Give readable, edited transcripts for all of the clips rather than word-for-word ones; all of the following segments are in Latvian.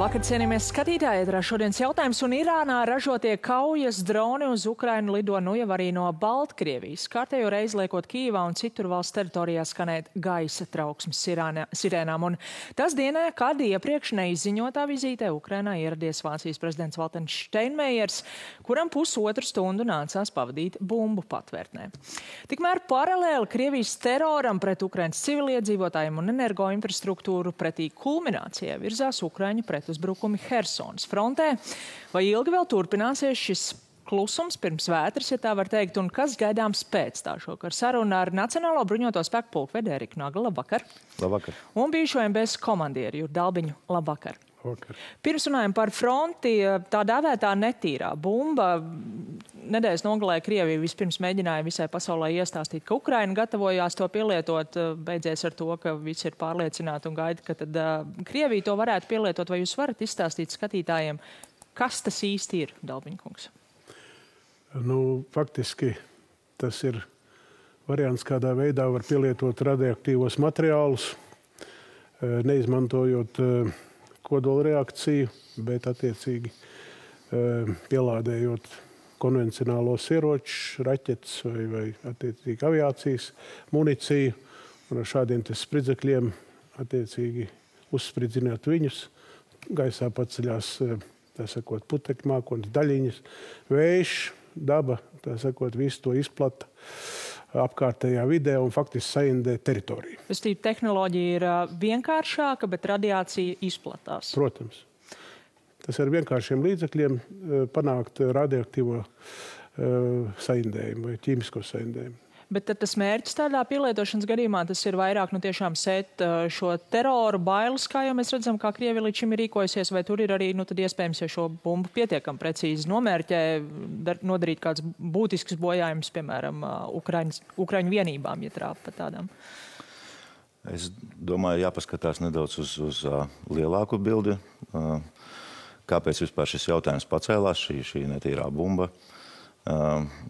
Labvakar, cienījamies skatītāji, ēterā šodienas jautājums, un Irānā ražotie kaujas droni uz Ukrainu lido nu jau arī no Baltkrievijas. Kārtējo reizi liekot Kijivā un citur valsts teritorijā skanēt gaisa trauksmes sirēnām. Un tas dienā, kad iepriekš neizziņotā vizītē Ukrainā ieradies Vācijas prezidents Valters Steinmeiers, kuram pusotru stundu nācās pavadīt bumbu patvērtnē. Tikmēr paralēli Krievijas teroram pret Ukrainas civiliedzīvotājiem un energoinfrastruktūru pretī kulminācijai virzās Ukraiņu pretuzbrukumi Hersonas frontē. Vai ilgi vēl turpināsies šis klusums pirms vētras, ja tā var teikt, un kas gaidāms pēc tā šokar? Saruna ar Nacionālo bruņoto spēku pulkvedi Eriku Naglu. Labvakar. Labvakar. Un bijušo MBS komandieru Juru Dalbiņu. Labvakar. Labvakar. Pirms runājam par fronti, tā dēvētā netīrā bumba. Nedēļas nogalē Krievija vispirms mēģināja visai pasaulē iestāstīt, ka Ukraina gatavojās to pielietot. Beidzies ar to, ka visi ir pārliecināti un gaida, ka tad Krievija to varētu pielietot. Vai jūs varat izstāstīt skatītājiem, kas tas īsti ir, Dalbiņkungs? Faktiski tas ir variants, kādā veidā var pielietot radioaktīvos materiālus, neizmantojot kodola reakciju, bet attiecīgi pielādējot konvencionālos ieročus, raķetes vai attiecīgi aviācijas municiju, un ar šādiem spridzekļiem attiecīgi uzspridzināt viņus. Gaisā paceļās, tā sakot, putekļu mākoņas daļiņas, vējš, daba, tā sakot, visu to izplata apkārtējā vidē un faktiski saindē teritoriju. Tehnoloģija ir vienkāršāka, bet radiācija izplatās. Protams. Tas ar vienkāršiem līdzekļiem panākt radioaktīvo saindējumu vai ķīmisko saindējumu. Bet tad tas mērķis tādā pielietošanas gadījumā, tas ir vairāk tiešām sēt šo teroru bailes, kā jau mēs redzam, kā Krievija līdz šim ir rīkojusies, vai tur ir arī tad iespējams, ja šo bumbu pietiekami precīzi nomērķē, nodarīt kāds būtisks bojājums, piemēram, Ukraiņu vienībām, ja trāpa par tādām? Es domāju, jāpaskatās nedaudz uz lielāku bildi. Kāpēc vispār šis jautājums pacēlās, šī netīrā bumba?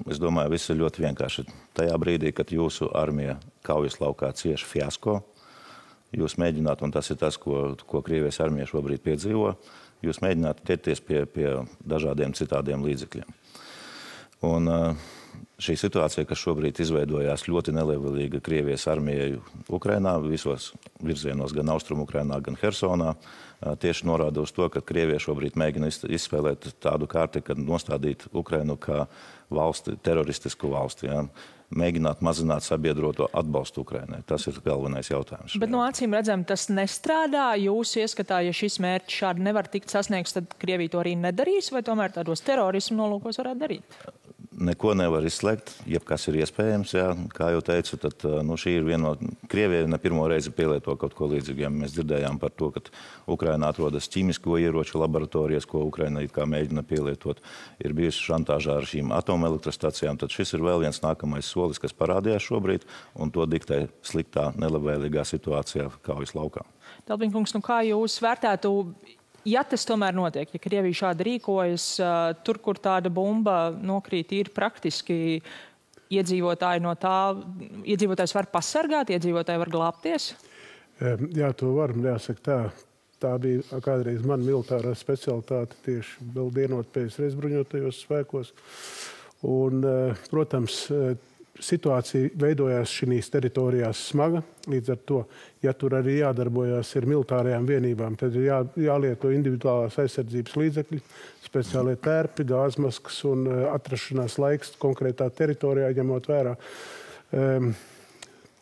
Es domāju, viss ir ļoti vienkārši. Tajā brīdī, kad jūsu armija kaujas laukā cieš fiasko, jūs mēģināt, un tas ir tas, ko Krievijas armija šobrīd piedzīvo, jūs mēģināt ķerties pie dažādiem citādiem līdzekļiem. Un šī situācija, kas šobrīd izveidojās ļoti nelabvēlīga Krievijas armijai Ukrainā, visos virzienos, gan Austrumu Ukrainā, gan Hersonā, tieši norāda uz to, ka Krievija šobrīd mēģina izspēlēt tādu kārti, kad nostādīt Ukrainu kā valsti, teroristisku valsti, ja? Mēģināt mazināt sabiedroto atbalstu Ukrainai. Tas ir galvenais jautājums. Bet no acīm redzam, tas nestrādā. Jūs ieskatā, ja šis mērķis šādi nevar tikt sasniegts, tad Krievija to arī nedarīs, vai tomēr tādos terorismu nolūkos varētu darīt? Neko nevar izslēgt, jebkas ir iespējams, jā. Kā jau teicu, tad šī ir viena no Krievija ne pirmo reizi pielieto kaut ko līdzīgu. Mēs dzirdējām par to, ka Ukrainā atrodas ķīmisko ieroču laboratorijas, ko Ukraina it kā mēģina pielietot. Ir bijusi šantāžā ar šīm atomelektrostacijām, tad šis ir vēl viens nākamais solis, kas parādījās šobrīd, un to diktē sliktā, nelabvēlīgā situācijā kaujas laukā. Dalbiņkungs, kā jūs vērtētu, ja tas tomēr notiek, ja Krievija šādi rīkojas, tur, kur tāda bumba nokrīt, ir praktiski iedzīvotāji no tā, iedzīvotājs var pasargāt, iedzīvotāji var glābties? Jā, to var, jāsaka tā. Tā bija kādreiz man militārā specialitāte tieši vēl dienot PSRS bruņotajos spēkos. Un, protams, situācija veidojās šīs teritorijās smaga. Līdz ar to, ja tur arī jādarbojās ar militārajām vienībām, tad ir jālieto individuālās aizsardzības līdzekļi, speciālie tērpi, gāzmaskas un atrašanās laiks konkrētā teritorijā, ņemot vērā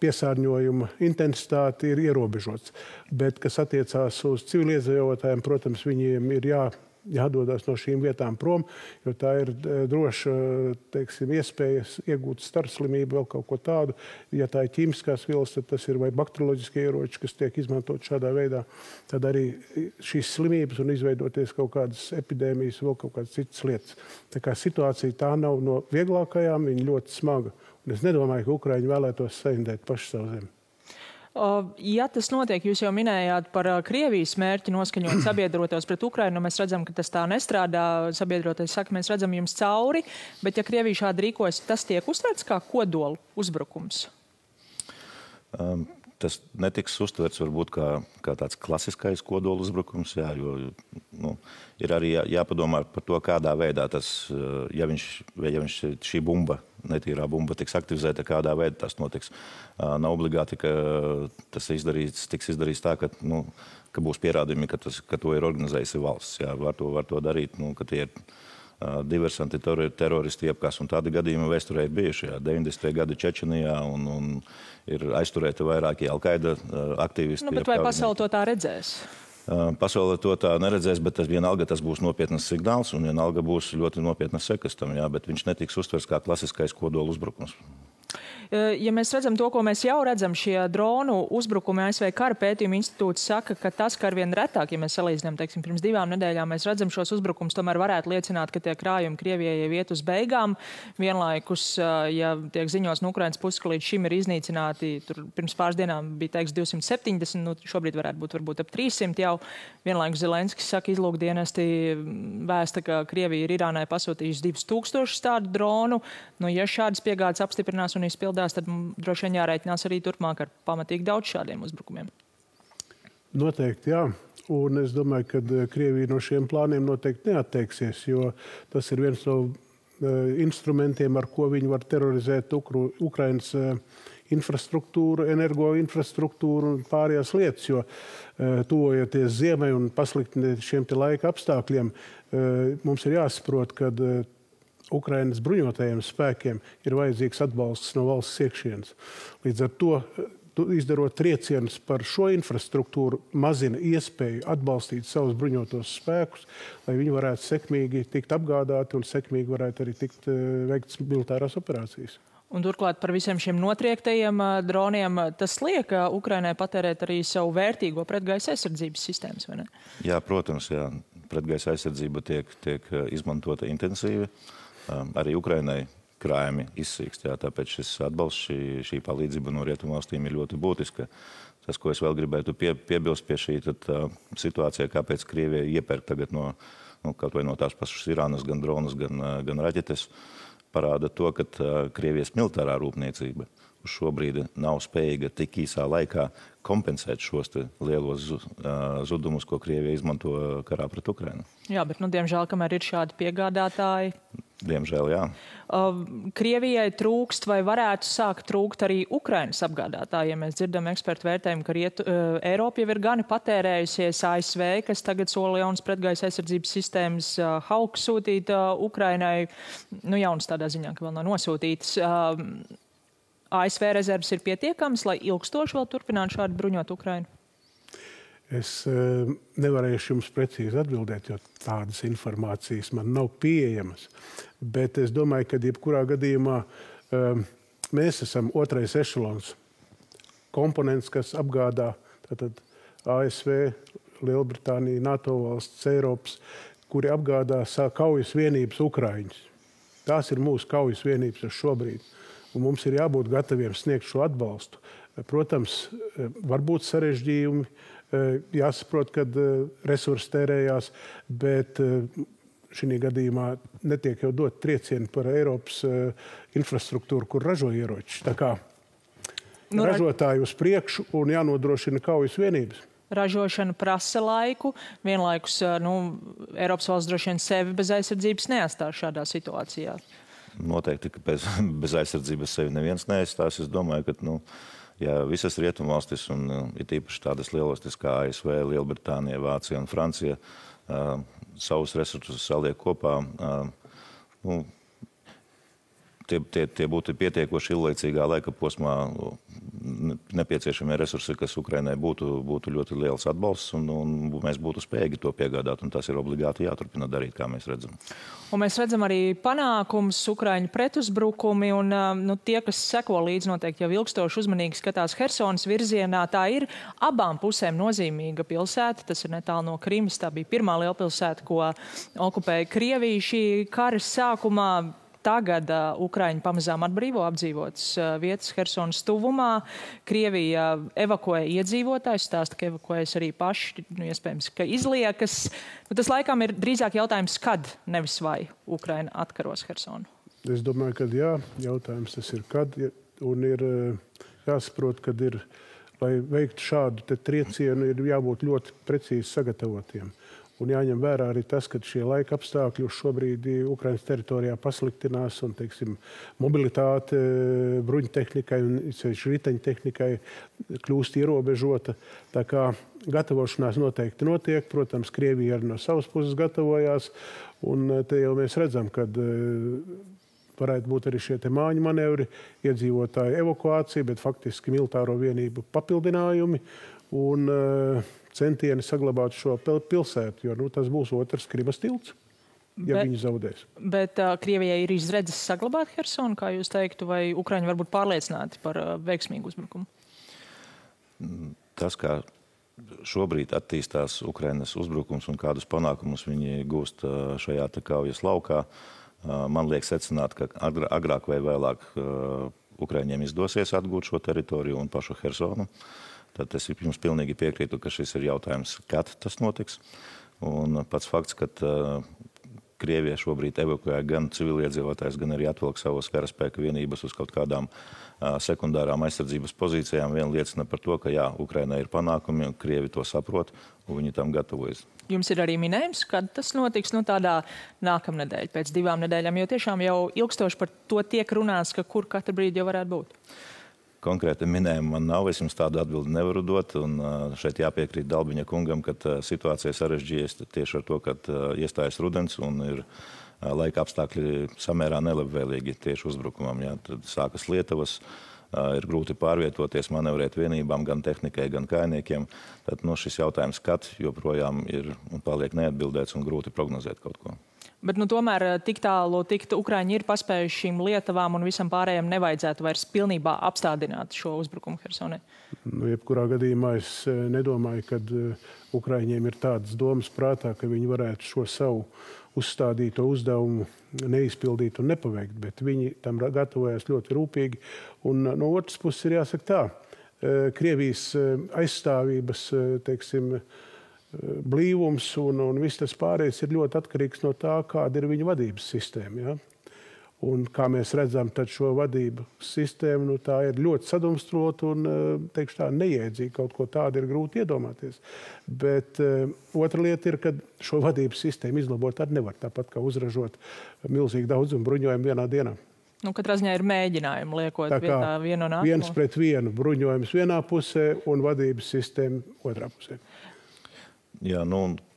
piesārņojuma intensitāti ir ierobežots. Bet, kas attiecās uz civiliedzīvotājiem, protams, viņiem ir jādodas no šīm vietām prom, jo tā ir droša, iespējas iegūt starslimību, vēl kaut ko tādu. Ja tā ir ķīmiskās vielas, tad tas ir vai bakterioloģiskie ieroči, kas tiek izmantot šādā veidā. Tad arī šīs slimības un izveidoties kaut kādas epidēmijas, vēl kaut kādas citas lietas. Tā kā situācija tā nav no vieglākajām, viņa ļoti smaga. Un es nedomāju, ka Ukraiņi vēlētos saindēt paši savu zemi. Ja tas notiek, jūs jau minējāt par Krievijas mērķi noskaņot sabiedrotos pret Ukrainu, mēs redzam, ka tas tā nestrādā. Sabiedrotais saka, mēs redzam jums cauri, bet ja Krievija šādi rīkojas, tas tiek uztverts kā kodolu uzbrukums? tas netiks uztverts varbūt kā tāds klasiskais kodola uzbrukums, jā, jo ir arī jāpadomā par to, kādā veidā tas, ja šī bumba, netīrā bumba tiks aktivizēta, kādā veidā tas notiks. Nav obligāti, ka tas tiks izdarīts tā, ka būs pierādījumi, ka to ir organizējusi valsts. Jā, var to darīt, ka tie ir diversanti, teroristi iepkās, un tādi gadījumi vēsturē ir bijuši. 90. gadi Čečenijā un ir aizturēti vairāki Al-Qaida aktīvisti. Bet vai pasaule to tā redzēs? Pasaule to tā neredzēs, bet vienalga tas būs nopietnas signāls un vienalga būs ļoti nopietnas sekas tam, jā, bet viņš netiks uztvers kā klasiskais kodola uzbrukums. Ja mēs redzam to, ko mēs jau redzam, šie dronu uzbrukumi, ASV Kara pētījuma institūts saka, ka tas, ka arvien retāk, ja mēs salīdzinām, teiksim, pirms 2 nedēļām, mēs redzam šos uzbrukums, tomēr varētu liecināt, ka tie krājumi Krievijai jau iet uz beigām. Vienlaikus, ja tiek ziņos no Ukrainas puses, ka līdz šim ir iznīcināti, tur pirms pāris dienām bija teiks 270, šobrīd varētu būt varbūt ap 300 jau. Vienlaikus Zelenskis saka, izlūkdienesti vēsta, ka Krievija ir Irānai pasūtījusi 2000 tādu dronu. Ja šādas piegādes apstiprinās un izpildās, tad droši vien jārēķinās arī turpmāk ar pamatīgi daudz šādiem uzbrukumiem. Noteikti, jā. Un es domāju, ka Krievija no šiem plāniem noteikti neatteiksies, jo tas ir viens no instrumentiem, ar ko viņi var terorizēt Ukrainas infrastruktūru, energoinfrastruktūru un pārējās lietas, jo tuvojoties ziemai un pasliktināt šiem te laika apstākļiem, mums ir jāsaprot, ka Ukrainas bruņotajiem spēkiem ir vajadzīgs atbalsts no valsts iekšienes. Līdz ar to, izdarot triecienus par šo infrastruktūru, mazina iespēju atbalstīt savus bruņotos spēkus, lai viņi varētu sekmīgi tikt apgādāti un sekmīgi varētu arī tikt veikts militārās operācijas. Un turklāt par visiem šiem notriektajiem droniem, tas liek Ukrainai patērēt arī savu vērtīgo pretgaisa aizsardzības sistēmas, vai ne? Jā, protams, jā. Pretgaisa aizsardzība tiek izmantota intensīvi. Arī Ukrainai krājumi izsīkst, jā, tāpēc šis atbalsts, šī palīdzība no rietumvalstīm ir ļoti būtiska. Tas, ko es vēl gribētu piebilst pie šī situācija, kāpēc Krievija iepērk tagad kaut vai no tās pašas Irānas gan dronus, gan raķetes, parāda to, ka Krievijas militārā rūpniecība uz šo brīdi nav spējīga tik īsā laikā kompensēt šos lielos zudumus, ko Krievija izmanto karā pret Ukrainu. Jā, bet, diemžēl, kamēr ir šādi piegādātāji... Diemžēl, jā. Krievijai trūkst vai varētu sākt trūkt arī Ukrainas apgādātājiem. Mēs dzirdam ekspertu vērtējumu, ka Eiropa jau ir gani patērējusies, ASV, kas tagad sola jaunas pretgaisa aizsardzības sistēmas Hawk sūtīt Ukrainai. Jaunas tādā ziņā, ka vēl nav nosūtītas. ASV rezerves ir pietiekams, lai ilgstoši vēl turpinātu šādi bruņot Ukrainu? Es nevarēšu jums precīzi atbildēt, jo tādas informācijas man nav pieejamas. Bet es domāju, ka jebkurā gadījumā mēs esam otrais ešelons komponents, kas apgādā tātad ASV, Lielbritānija, NATO valsts, Eiropas, kuri apgādā kaujas vienības Ukraiņus. Tās ir mūsu kaujas vienības uz šobrīd. Un mums ir jābūt gataviem sniegt šo atbalstu. Protams, var būt sarežģījumi, jāsaprot, kad resursi tērējās, bet šī gadījumā netiek jau dot triecieni par Eiropas infrastruktūru, kur ražo ieroči. Tā kā ražotāji uz priekšu un jānodrošina kaujas vienības. Ražošana prasa laiku, vienlaikus Eiropas valsts droši vien sevi bez aizsardzības neatstās šādā situācijā. Noteikti, ka bez aizsardzības sevi neviens neaizstās. Es domāju, ka ja visas rietumvalstis un ir tīpaši tādas lielvalstis kā ASV, Lielbritānija, Vācija un Francija savus resursus saliek kopā, tie būtu pietiekoši ilglaicīgā laika posmā nepieciešamie resursi, kas Ukrainai būtu ļoti liels atbalsts, un mēs būtu spējīgi to piegādāt, un tas ir obligāti jāturpina darīt, kā mēs redzam. Un mēs redzam arī panākums, Ukraiņu pretuzbrukumi, un tie, kas seko līdz noteikti jau ilgstoši uzmanīgi skatās Hersonas virzienā, tā ir abām pusēm nozīmīga pilsēta, tas ir netālu no Krimas, tā bija pirmā lielpilsēta, ko okupēja Krievija šī kara sākumā. Tagad Ukraiņi pamazām atbrīvo apdzīvotas vietas Hersonas tuvumā. Krievija evakuē iedzīvotājus, stāsta, ka evakuējas arī paši, iespējams, ka izliekas. Tas laikam ir drīzāk jautājums, kad, nevis vai Ukraina atkaros Hersonu. Es domāju, ka jā, jautājums tas ir kad, un ir jāsaprot, kad ir lai veiktu šādu triecienu, ir jābūt ļoti precīzi sagatavotiem. Un jāņem vērā arī tas, ka šie laika apstākļi šobrīd Ukrainas teritorijā pasliktinās un, teiksim, mobilitāte bruņtehnikai un riteņtehnikai kļūst ierobežota. Tā kā gatavošanās noteikti notiek. Protams, Krievija arī no savas puses gatavojās. Un te jau mēs redzam, kad varētu būt arī šie māju manevri, iedzīvotāju evakuācija, bet faktiski militāro vienību papildinājumi un centieni saglabāt šo pilsētu, jo tas būs otrs Krimas tilts, ja viņi zaudēs. Bet Krievijai ir izredzes saglabāt Hersonu, kā jūs teiktu, vai Ukraiņi var būt pārliecināti par veiksmīgu uzbrukumu? Tas, kā šobrīd attīstās Ukrainas uzbrukums un kādus panākumus viņi gūst šajā kaujas laukā, man liek secināt, ka agrāk vai vēlāk Ukraiņiem izdosies atgūt šo teritoriju un pašu Hersonu. Tad es jums pilnīgi piekrītu, ka šis ir jautājums, kad tas notiks. Un pats fakts, ka Krievija šobrīd evakuē gan civiliedzīvotājs, gan arī atvilk savus karaspēka vienības uz kaut kādām sekundārām aizsardzības pozīcijām, vien liecina par to, ka jā, Ukrainai ir panākumi, Krievi to saprot, un viņi tam gatavojas. Jums ir arī minējums, kad tas notiks, tādā nākamnedēļ, pēc 2 nedēļām, jo tiešām jau ilgstoši par to tiek runāts, ka kur katru brīdi jau varētu būt? Konkrēti minējumu man nav, es jums tādu atbildi nevaru dot, un šeit jāpiekrīt Dalbiņa kungam, ka situācija sarežģījies tieši ar to, ka iestājas rudens un ir laika apstākļi samērā nelabvēlīgi tieši uzbrukumam. Jā. Tad sākas lietavas, ir grūti pārvietoties, manevrēt vienībām, gan tehnikai, gan kājniekiem. Tad šis jautājums, kad joprojām ir un paliek neatbildēts un grūti prognozēt kaut ko. Bet tomēr tik tālu Ukraiņi ir paspējuši šīm lietavām un visam pārējiem nevajadzētu vairs pilnībā apstādināt šo uzbrukumu Hersonai? Jebkurā gadījumā es nedomāju, ka Ukraiņiem ir tādas domas prātā, ka viņi varētu šo savu uzstādīto uzdevumu neizpildīt un nepaveikt, bet viņi tam gatavojas ļoti rūpīgi. Un no otras puses ir jāsaka tā, Krievijas aizstāvības, teiksim, blīvums un viss tas pārējais ir ļoti atkarīgs no tā, kāda ir viņa vadības sistēma. Ja? Un kā mēs redzam, tad šo vadību sistēmu tā ir ļoti sadumstrota un, teikšu tā, neiedzīga. Kaut ko tādu ir grūti iedomāties. Bet otra lieta ir, ka šo vadības sistēmu izlabot arī nevar, tāpat kā uzražot milzīgi daudzumu bruņojumu vienā dienā. Katrā ziņā ir mēģinājumi liekot vietā vienu un nākamo. 1-1 bruņojums vienā pusē un vadības sistēma otrā pusē. Jā,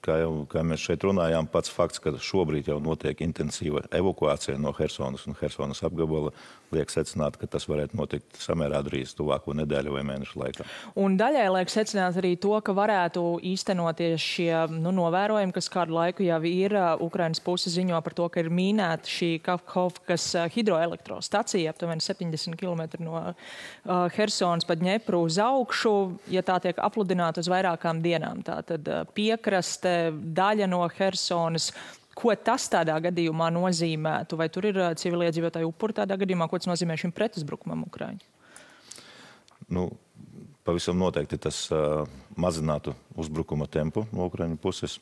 kā mēs šeit runājām, pats fakts, ka šobrīd jau notiek intensīva evakuācija no Hersonas un Hersonas apgabala, liek secināt, ka tas varētu notikt samērā drīz tuvāko nedēļu vai mēnešu laikā. Un daļai liek secināt arī to, ka varētu īstenoties šie novērojumi, kas kādu laiku jau ir. Ukrainas puse ziņo par to, ka ir mīnēta šī Kakhovkas hidroelektrostacija, aptuveni 70 km no Hersonas pa Dņepru uz augšu, ja tā tiek apludināta uz vairākām dienām. Tātad piekraste, daļa no Hersonas. Ko tas tādā gadījumā nozīmētu? Vai tur ir civiliedzīvotāju upuri tādā gadījumā? Ko tas nozīmē šim pretuzbrukumam Ukraiņu? Pavisam noteikti tas mazinātu uzbrukuma tempu no Ukraiņu puses.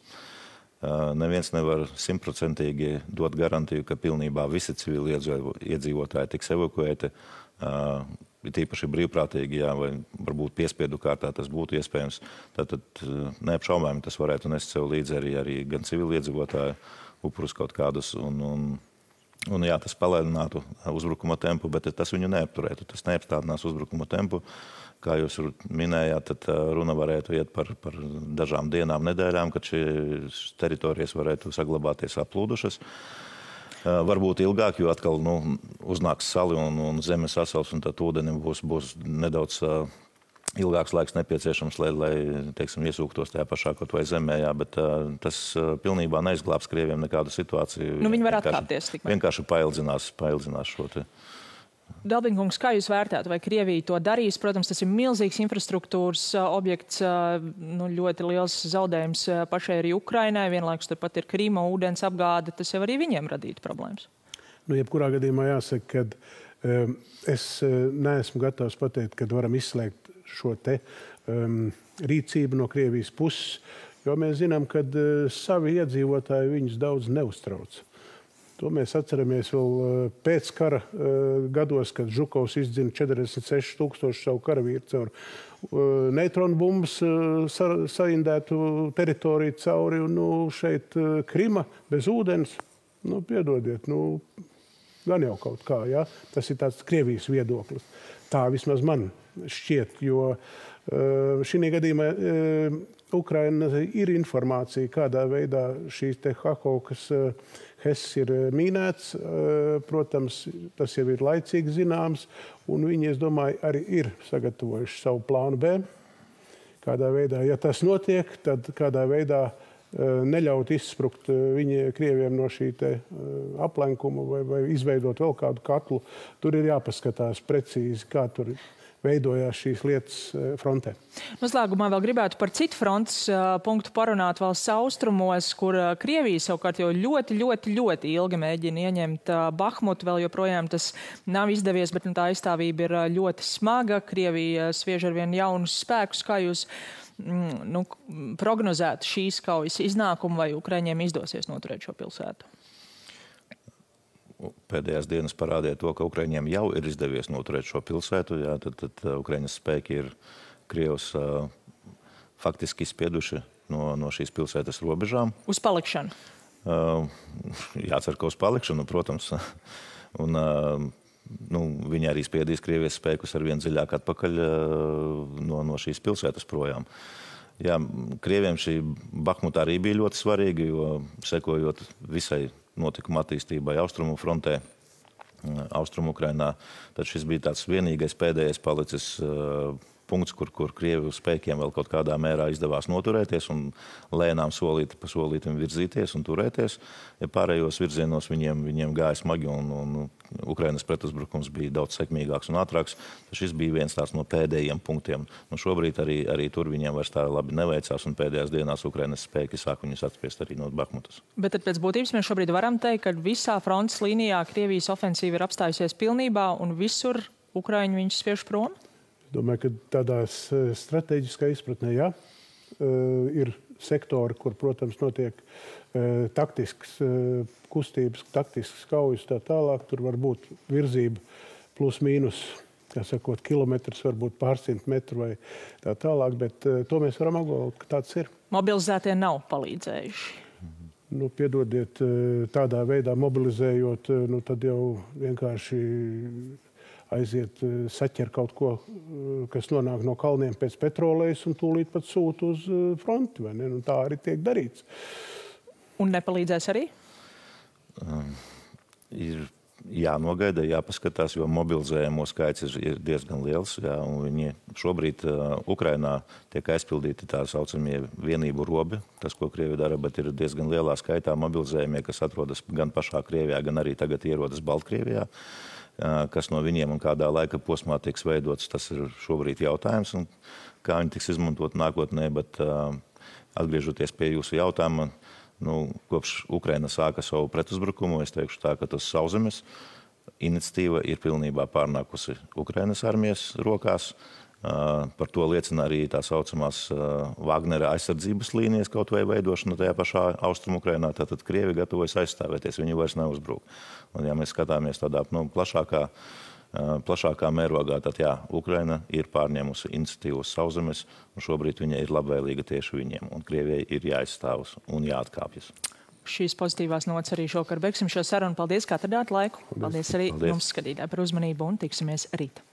Neviens nevar 100% dot garantiju, ka pilnībā visi civiliedzīvotāji tiks evakuēti. Tīpaši brīvprātīgi, jā, vai varbūt piespiedu kārtā tas būtu iespējams. Tātad neapšaubāmi tas varētu nest sev līdzi arī gan civiliedzīvotāju upurus kaut kādus. Un jā, tas palēninātu uzbrukuma tempu, bet tas viņu neapturētu. Tas neapstādinās uzbrukuma tempu. Kā jūs minējāt, tad runa varētu iet par dažām dienām, nedēļām, kad šīs teritorijas varētu saglabāties aplūdušas. Varbūt ilgāk, jo atkal uznāks sali un zeme sasals, un tad ūdenim būs nedaudz ilgāks laiks nepieciešams, lai teiksim, iesūktos tajā pašā kaut vai zemē, jā, bet tas pilnībā neizglābs Krieviem nekādu situāciju. Viņi var atkāpties tikmēr. Vienkārši paildzinās šo te. Dalbiņkungs, kā jūs vērtētu, vai Krievija to darīs? Protams, tas ir milzīgs infrastruktūras objekts, ļoti liels zaudējums pašai arī Ukrainai, vienlaikus turpat ir Krīma, ūdens apgāde, tas jau arī viņiem radītu problēmas. Jebkurā gadījumā jāsaka, ka es neesmu gatavs pateikt, kad varam izslēgt šo te rīcību no Krievijas puses, jo mēs zinām, ka savi iedzīvotāji viņus daudz neuztrauc. To mēs atceramies vēl pēc kara gados, kad Žukovs izdzina 46,000 savu karavīru caur neitronu bumbas saindētu teritoriju cauri. Un šeit Krima bez ūdens, piedodiet, gan jau kaut kā, ja? Tas ir tāds Krievijas viedoklis. Tā vismaz man šķiet, jo šī gadījumā Ukraina ir informācija, kādā veidā šīs te Hakovkas Hess ir mīnēts. Protams, tas jau ir laicīgi zināms, un viņi, es domāju, arī ir sagatavojuši savu plānu B. Kādā veidā, ja tas notiek, tad kādā veidā neļaut izsprukt Krieviem no šī te aplenkuma vai izveidot vēl kādu katlu. Tur ir jāpaskatās precīzi, kā tur veidojās šīs lietas frontē. Noslēgumā vēl gribētu par citu frontes punktu parunāt valsts austrumos, kur Krievija savukārt jau ļoti ilgi mēģina ieņemt Bahmutu. Vēl joprojām tas nav izdevies, bet tā aizstāvība ir ļoti smaga. Krievija sviež arvien jaunus spēkus. Kā jūs prognozētu šīs kaujas iznākumu, vai Ukraiņiem izdosies noturēt šo pilsētu? Pēdējās dienas parādīja to, ka Ukraiņiem jau ir izdevies noturēt šo pilsētu. Jā, tad Ukraiņas spēki ir Krievus faktiski izspieduši no šīs pilsētas robežām. Uz palikšanu? Jācer, ka uz palikšanu, protams. Un, viņi arī spiedīs Krievijas spēkus arvien dziļāk atpakaļ no šīs pilsētas projām. Jā, Krieviem šī Bahmuta arī bija ļoti svarīga, jo sekojot visai notikuma attīstībai Austrumu frontē, Austrumu Ukrainā, tad šis bija tāds vienīgais pēdējais palicis punkts, kur Krievu spēkiem vēl kaut kādā mērā izdevās noturēties un lēnām solīti pa solītim virzīties un turēties. Ja pārējos virzienos viņiem gāja smagi un Ukrainas pretuzbrukums bija daudz sekmīgāks un ātrāks, tad šis bija viens tāds no pēdējiem punktiem. Šobrīd arī tur viņiem vairs tā labi neveicās un pēdējās dienās Ukrainas spēki sāk viņus atspiest arī no Bahmutas. Bet tad pēc būtības mēs šobrīd varam teikt, ka visā frontes līnijā Krievijas ofensīva ir apstājusies pilnībā un visur Ukraiņi viņus spiež prom? Domāju, ka tādās strateģiskā izpratnē, jā, ir sektori, kur, protams, notiek taktisks kustības, taktisks kaujas tā tālāk. Tur var būt virzība plus mīnus, kā sakot, kilometrs, varbūt pārsimt metru vai tā tālāk, bet to mēs varam apgalvot, ka tāds ir. Mobilizētie nav palīdzējuši? Piedodiet, tādā veidā mobilizējot, tad jau vienkārši aiziet, saķer kaut ko, kas nonāk no kalniem pēc petrolejas un tūlīt pat sūta uz fronti, vai ne? Tā arī tiek darīts. Un nepalīdzēs arī? Ir jānogaida, jāpaskatās, jo mobilizējumu skaits ir diezgan liels. Jā, un viņi šobrīd Ukrainā tiek aizpildīti tā saucamie vienību robi, tas, ko Krievi dara, bet ir diezgan lielā skaitā mobilizējumie, kas atrodas gan pašā Krievijā, gan arī tagad ierodas Baltkrievijā. Kas no viņiem un kādā laika posmā tiks veidots, tas ir šobrīd jautājums, un kā viņi tiks izmantot nākotnē, bet atgriežoties pie jūsu jautājuma, kopš Ukraina sāka savu pretuzbrukumu, es teikšu tā, ka tas sauszemes iniciatīva ir pilnībā pārnākusi Ukrainas armijas rokās. Par to liecina arī tā saucamās Wagnera aizsardzības līnijas kaut vai veidošana tajā pašā Austrumu Ukrainā. Tātad Krievi gatavojas aizstāvēties, viņi vairs neuzbruk. Un ja mēs skatāmies tādā plašākā mērogā, tad jā, Ukraina ir pārņēmusi iniciatīvu uz sauszemes, un šobrīd viņa ir labvēlīga tieši viņiem, un Krievijai ir jāizstāvas un jāatkāpjas. Šīs pozitīvās nots arī šokar beigsim šo sarunu. Paldies, ka atradāt laiku. Paldies arī jums, skatītāji, par uzmanību un tiksimies rīt.